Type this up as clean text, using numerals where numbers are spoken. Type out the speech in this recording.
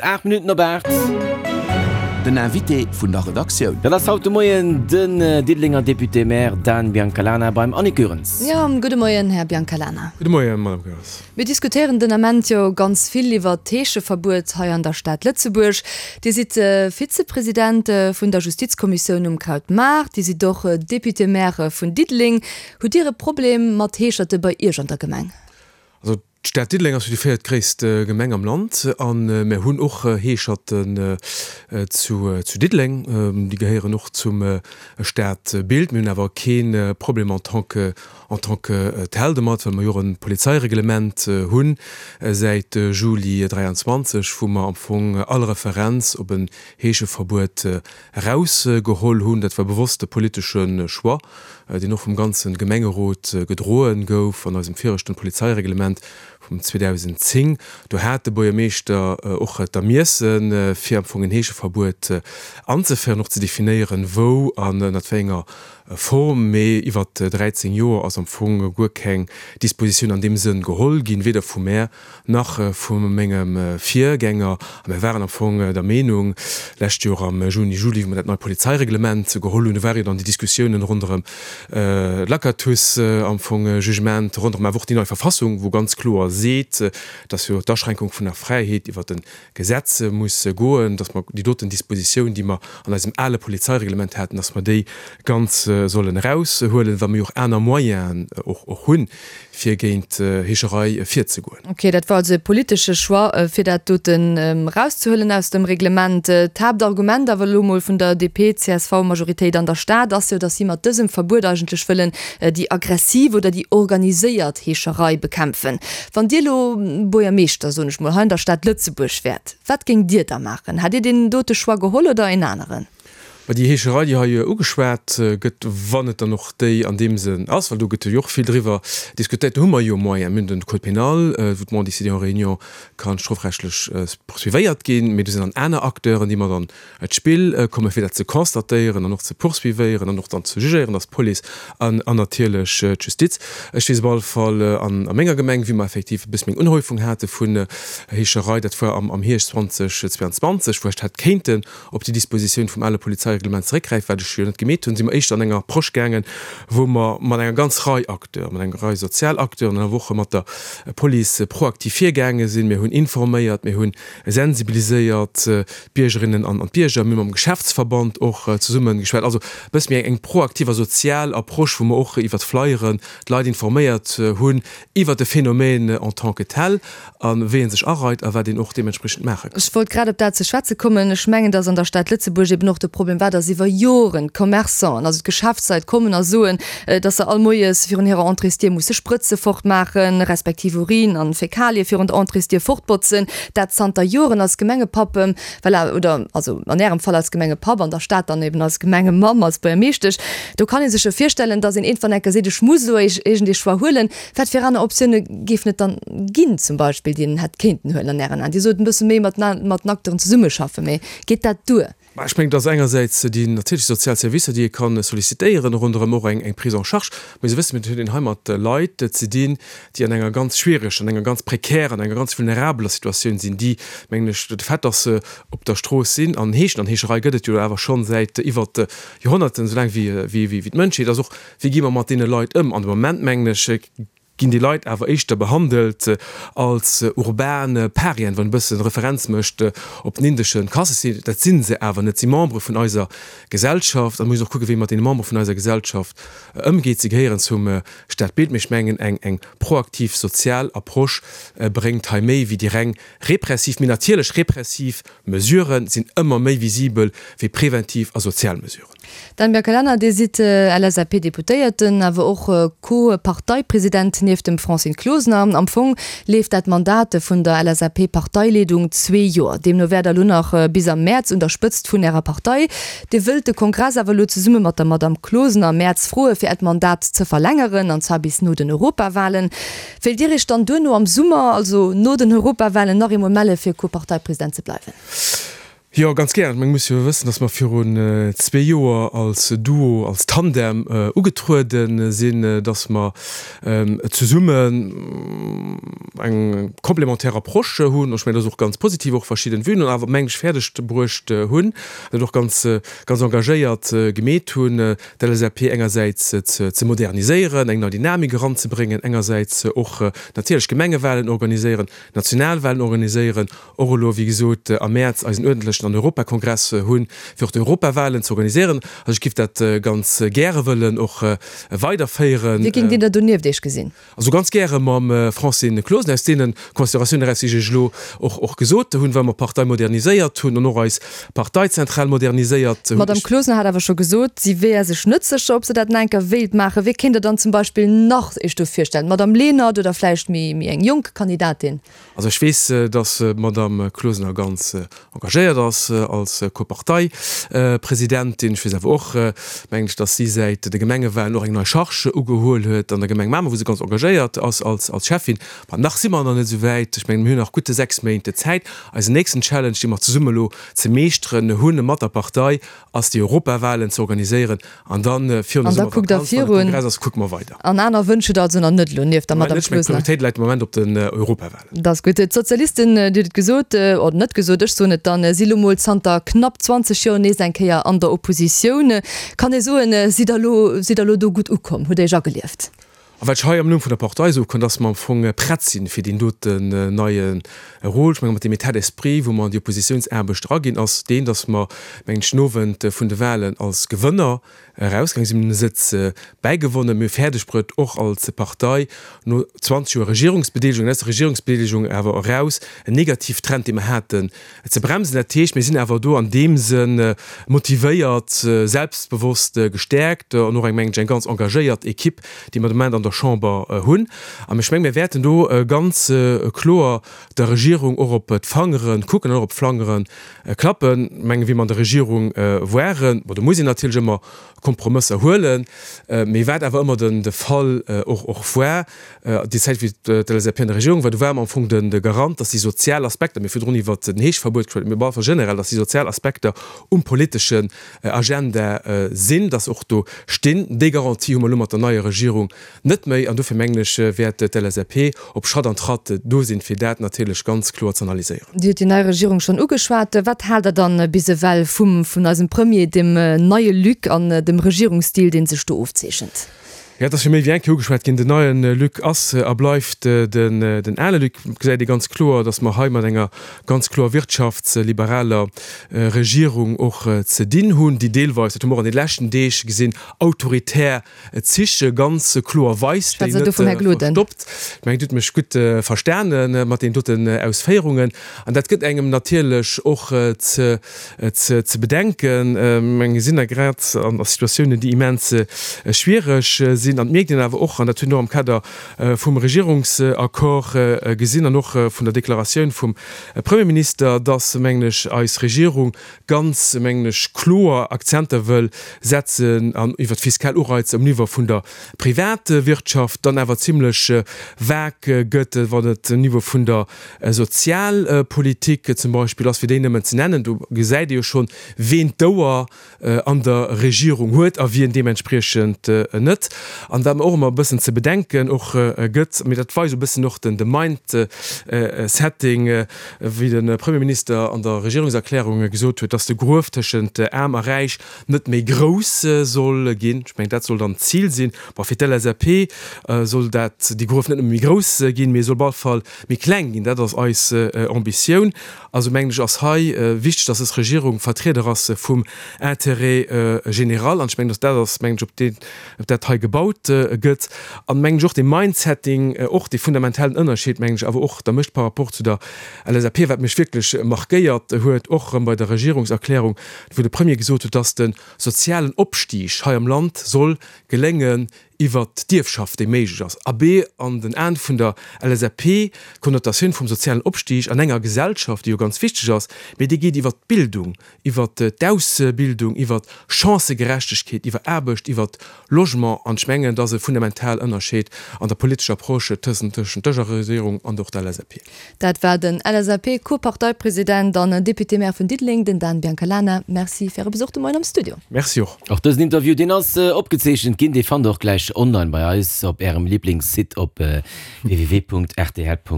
8 Minutten op 8. Den Invité vun der Redaktioun. Dat ass haut de Moien den Diddelenger Député-Maire Dan Biancalana beim Annick Goerens. Jo, gudde Moien, Här Biancalana. Gudde Moien, Madame Goerens. Mir diskutéieren den Ament jo ganz vill iwwert d'Heescheverbuet hei an der Stad Lëtzebuerg. Dir sidd Vizepresident vun der Justizkommissioun um Krautmaart, Dir sidd och Député-Maire vun Diddeleng. Hutt Dir e Problem mat Heescherte bei Iech an der Gemeng? Also d'Stad Diddeleng ass jo déi véiertgréisst Gemeng am Land a mir hunn och Heescherten zu Diddeleng. Déi gehéieren och zum Stadbild. Mir hunn awer kee Problem en tant que, en tant que tel domat, well mer jo och e Polizeireglement hunn säit Juli 23, wou mer am Fong all Referenz op en Heescheverbuet erausgeholl hunn. Dat war bewosst e politesche Choix, deen och vum ganze Gemengerot gedroe gouf an eisem viregten Polizeireglement vum 2010. Do hat de Buergermeeschter och d'Ermiessen, fir am Fong en Heescheverbuet anzeféieren, och ze definéieren, wou an ënnert wéi enger Form. Mee iwwert 13 Joer ass am Fong guer keng Dispositioun an deem Sënn geholl ginn, weder vu mär nach vu mengem Virgänger, a mir waren am Fong der Meenung, lescht Joer am Juni, Juli, wou mer dat neit Polizeireglement geholl hunn, do ware jo dann déi Diskussiounen ronderëm d'Lacatus am Fong, Jugement, ronderëm awer och déi nei Verfassung, wou ganz kloer seet, dass jo d'Aschränkung vun der Fräiheet iwwert e Gesetz muss goen, dass mer déi doten Dispositioun, déi mer an eisem ale Polizeireglement haten, dass mer déi ganz sollen eraushuelen, well mer jo och aner Moyenen och hunn, fir géint Heescherei virzegoen. Ok, dat war also e politesche Choix, fir dat doten erauszehuelen aus dem Reglement. D'Haaptargument awer elo mol vun der DP-CSV-Majoritéit an der Stad ass jo, datt si mat dësem Verbuet eigentlech wëllen déi aggressiv oder déi organiséiert Heescherei bekämpfen. Wann Dir elo Buergermeeschter, soen ech mol, hei an der Stad Lëtzebuerg wäert, wat géingt Dir da maachen? Hätt Dir deen dote Choix geholl oder een aneren? Mä déi Heescherei, déi hei ugeschwat gëtt, wann et dann och déi an deem Sënn ass, well do gëtt jo och vill driwwer diskutéiert, do hu mer jo Moyenen. Mir hunn den Code pénal, wou d'Mendicité en réunion ka strofrechtlech poursuivéiert ginn, mee do sinn dann aner Acteuren, déi mat an d'Spill kommen, fir dat ze constatéieren an och ze poursuivéieren an och dann ze jugéieren, dat ass d'Police an natierlech d'Justiz. Ech weess op alle Fall a menger Gemeng, wéi mer effektiv e bësse méi eng Unhäufung hate vun Heescherei, dat war am Hierscht 2022, wou ech hätt kéinten op déi Dispositioun vum ale Polizeireglement zeréckgräifen, wat ech jo net gemeet hunn, si mer éischter an enger Approche gaangen, wou mer mat enger ganz Rei Acteuren, mat enger Rei sozial Acteuren an awer och mat der Police proaktiv virgaange sinn. Mir hunn informéiert, mir hu sensibiliséiert d'Biergerinnen an d'Bierger, mir hu mam Geschäftsverband och zesumme geschwat. Also e bësse méi eng proaktiv a sozial Approche, wou mer och iwwert Flyeren d'Leit informéiert hunn iwwert de Phänomen en tant que tel. A wéi ee sech areit a wat een och deementspriechend maache kann. Ech wollt grad op dat ze schwätze kommen. Ech mengen, dass an der Stad Lëtzebuerg eben och de Problem war, dass iwwer Joren d'Commerçanten, also d'Geschäftsleit kommen a soen, dass se all Moies virun hirer Entréesdier musse Sprëtze fortmaachen, respektiv Urin an Fäkalie virun der Entréesdier fortbotzen. Dat zanter Joren als Gemengepapp, voilà, oder also an Ärem Fall als Gemengepapp, an der Stad dann eben als Gemengemamm, als Buergermeeschtesch. Do kann ee sech jo virstellen, dass een iergendwann eng Kéier seet, ech muss elo iergendee Choix huelen. Wat fir aner Optioune géifen et dann ginn, zum Beispill, déi een hätt kéinten huelen an Ären Aen? Dir sot, e bësse méi mat mat den Acteuren zesummeschaffen, mee geet dat duer? Bah, ech mengen, et ass engersäits déi natierlech sozial Servicer, déi ee ka sollicitéieren, ronderëm och eng eng Prise en charge. Mee se wëssen, et huet een hei mat Leit ze dinn, déi an enger ganz schwiereger, an enger ganz prekärer, an enger ganz vulnerabeler Situatioun sinn, déi, mengen ech, de Fait, dass se op der Strooss sinn an heeschen, an Heescherei gëtt et jo awer schonn säit iwwert Joerhonnerten, esou laang wéi wéi d'Mënschheet ass, och Wéi gi mer mat deene Leit ëm? An de Moment, mengen ech, ginn déi Leit awer éischter behandelt als urban Parien, wann e bëssen Referenz mécht op den indesche Kassesystem. Dat si se awer net. Si Membere vun eiser Gesellschaft a mir mussen och kucken, wéi ee mat deene Membere vun eiser Gesellschaft ëmgeet. Si gehéieren zum Stadbild. Mee ech mengen, eng eng proaktiv sozial Approche bréngt hei méi wéi déi reng repressiv. Mee natierlech, repressiv Mesurë sinn ëmmer méi visibel wéi preventiv a sozial Mesuren. Dan Biancalana, Dir sidd LSAP-Deputéierten, awer och Co-Parteipresident nieft dem Francine Closener. Am Fong leeft dat Mandat vun der LSAP-Parteileedung zwee Joer. Deemno wäert Der elo nach bis am Mäerz un der Spëtzt vun Ärer Partei. Dir wëllt de Kongress awer elo zesumme mat der Madamm Closener am Mäerz froe fir Äert Mandat ze verlängeren, an zwar bis no den Europawalen. Wéilt Dir Iech dann duerno am Summer, also no den Europawalen, nach eemol melle fir Co-Parteipresident ze bleiwen? Jo, ganz gär. Mir musse jo wëssen, datt mer virun zwee Joer als Duo, als Tandem ugetruede sinn, datt mer zesummen eng complémentaire Approche hunn. Ech mengen, dat ass och ganz positiv, och verschidden Vuen, an awer, mengen ech, fäerdeg bruecht hunn, dat och ganz, ganz engagéiert gemeet hunn, d'LSAP engersäits ze moderniséieren, eng nei Dynamik eranzebréngen, engersäits och natierlech Gemengewahlen organiséieren, Nationalwahlen organiséieren, och elo, wéi gesot, am Mäerz eisen uerdentlechen an Europakongress hunn, fir och d'Europawahlen ze organiséieren. Also ech géif dat ganz gäre wëllen och weiderféieren. Wie géingt Dir da donieft Iech gesinn? Also ganz gäre mam Francine Closener, aus deene Consideratiounen eraus, déi ech Iech elo och och gesot hunn, well mer d'Partei moderniséiert hunn an och eis Parteizentral moderniséiert hunn. D'Madame Closener hat awer scho gesot, si wär sech net sécher, ob se dat nach eng Kéier wéilt maachen. Wie kéint Der dann zum Beispill nach Iech do virstellen? D'Madame Lenert oder vläicht méi eng jonk Kandidatin? Also ech weess, datt d'Madame Closener ganz engagéiert ass als Co-Parteipresidentin. Ech weess awer och, mengen ech, datt si säit de Gemengewahlen och eng nei Charge ugehuel huet an der Gemeng Mamer, wou se ganz engagéiert ass als Schäffin. Ma nach si mer nach net esou wäit. Ech mengen, mir hunn nach gutt 6 Méint Zäit. Eisen nächsten Challenge, dee mer zesumme elo ze meeschteren hunn mat der Partei, ass déi Europawahlen ze organiséieren an dann virun der An da kuckt der Summervakanz, wann de virun. Kongress ass, kucke mer weider. An aner Wënsch hutt der also nach net elo, nieft der Moment Madame net, ech mengen Closener? d'Prioritéit läit de Moment op den Europawahlen. Dat ass gutt. D'Sozialisten, Dir hutt et gesot, oder net gesot, ech soen et dann, si lo mol zanter knapp 20 Joer nees eng Kéier an der Oppositioun. Kann ee soen, sidd der elo, sidd der elo do gutt ukomm, hutt Iech agelieft? A wat ech hei am Numm vun der Partei soe kann, dass mer am Fong prett sinn fir deen doten neie Rôle. Ech menge mat deem État d'esprit, wou mer an déi Oppositiounsaarbecht eraginn, ass deen, dass mer, mengen ech, den Owend vun de Wahlen als Gewënner erausgaange sinn. Mir hunn e Sëtz bäigewonnen. Mir hu fäerdegbruet, och als Partei no 20 Joer Regierungsbedeelegung, an aus der Regierungsbedeelegung awer eraus, en Negativtrend, dee mer haten, ze bremsen. Dat heescht, mir sinn awer do an deem Sënn motivéiert, selbstbewosst, gestäerkt an och eng, mengen ech, eng ganz engagéiert Equipe, déi mer de Moment an der Chamber hunn. An ech mengen, mir wäerten do ganz kloer der Regierung och op d'Fangere kucken an och op d'Fangere klappen. Ech mengen, wéi mer an der Regierung waren, bon, do muss een natierlech ëmmer Kompromësser huelen, mee wat awer ëmmer de Fall och och war, déi Zäit wéi d'LSAP an der Regierung war, do war mer am Fong de Garant, datt déi sozial Aspekter, mir hu virdrun iwwert den Heeschverbuet geschwat, mee einfach generell, datt déi sozial Aspekter um politeschen Agenda sinn, datt se och do stinn. Déi Garantie hu mer elo mat der neier Regierung net méi an dofir mengen ech, wäert d'LSAP op Schratt an Tratt do sinn, fir dat natierlech ganz kloer z'analyséieren. Dir hutt déi nei Regierung schonn ugeschwat. Wat haalt Der dann bis ewell vum, vun eisem Premier, dem neie Luc an dem Regierungsstil, dee sech do ofzeechent? Jo, et ass jo méi wéi eng Kéier ugeschwat ginn, den neie Luc ass a bleift den, den ale Luc. Et gesäit ee ganz kloer, datt mer hei mat enger ganz kloer wirtschaftsliberaler Regierung och ze dinn hunn, déi deelweis, dat hu mer och an de leschten Deeg gesinn, autoritär Zich ganz kloer weist, déi net verstoppt. Ech mengen, Dir hutt mech gutt verstane mat deenen doten Ausféierungen. An dat gëtt engem natierlech och ze bedenken. Ech mengen, mir sinn da grad an Situatiounen, déi immens schwiereg sinn. An et mierkt een awer och, an dat hunn och am Kader vum Regierungsaccord gesinn an och vun der Deklaratioun vum Premierminister, dass, mengen ech, eis Regierung ganz, mengen ech, kloer Akzenter wëll setzen an iwwert fiskal Ureizer um Niveau vun der Privatwirtschaft, dann awer zimlech vag gëtt, wann et um Niveau vun der Sozialpolitik zum Beispill ass, fir déi nëmmen ze nennen. Do gesäit ee jo schonn, ween d'Ouer an der Regierung huet a wien deementspriechend net. An wat mer och ëmmer e bëssen ze bedenken och gëtt, mee dat weist e bëssen och de Mindsetting, wéi de Premierminister an der Regierungserklärung gesot huet, dass de Gruef tëschent Aarm a Räich net méi grouss soll ginn. Ech mengen, dat soll dann d'Zil sinn. Bon, fir d'LSAP soll dat, dee Gruef net nëmme méi grouss ginn, mee e soll op alle Fall méi kleng ginn. Dat ass eis Ambitioun. Also mengen ech, ass hei wichteg, dass dës Regierung Vertrieder ass vum Intérêt général. An ech mengen, dass dat ass, mengen ech, op deen, op dat hei gebaut gëtt. An mengen ech och dee Mindsetting, och dee fundamentalen Ënnerscheed, mengen ech awer och da mécht par rapport zu der LSAP, wat mech wierklech markéiert huet, och erëm bei der Regierungserklärung, wou de Premier gesot huet, dass de sozialen Opstig hei am Land soll geléngen. Iwwert d'Ierfschaft, déi méiglech ass. Abee, an den Aen vun der LSAP, d'Konnotatioun vum sozialen Opstig an enger Gesellschaft, déi jo ganz wichteg ass, mee déi geet iwwert d'Bildung, iwwert d'Ausbildung, iwwert Chancëgerechtegkeet, iwwer Aarbecht, iwwert Logement. An ech mengen, dat ass e fundamental Ënnerscheed an der politescher Approche tëschent dëser Regierung an och der LSAP. Dat war den LSAP-Co-Parteipresident an Député-Maire vun Diddeleng, den Dan Biancalana. Merci fir Äre Besuch de Moien am Studio. Merci och. Och dësen Interview, deen ass opgezeechent ginn, dee fannt der och gläich online bei eis op Ärem Liblingssite op www.rtl.lu.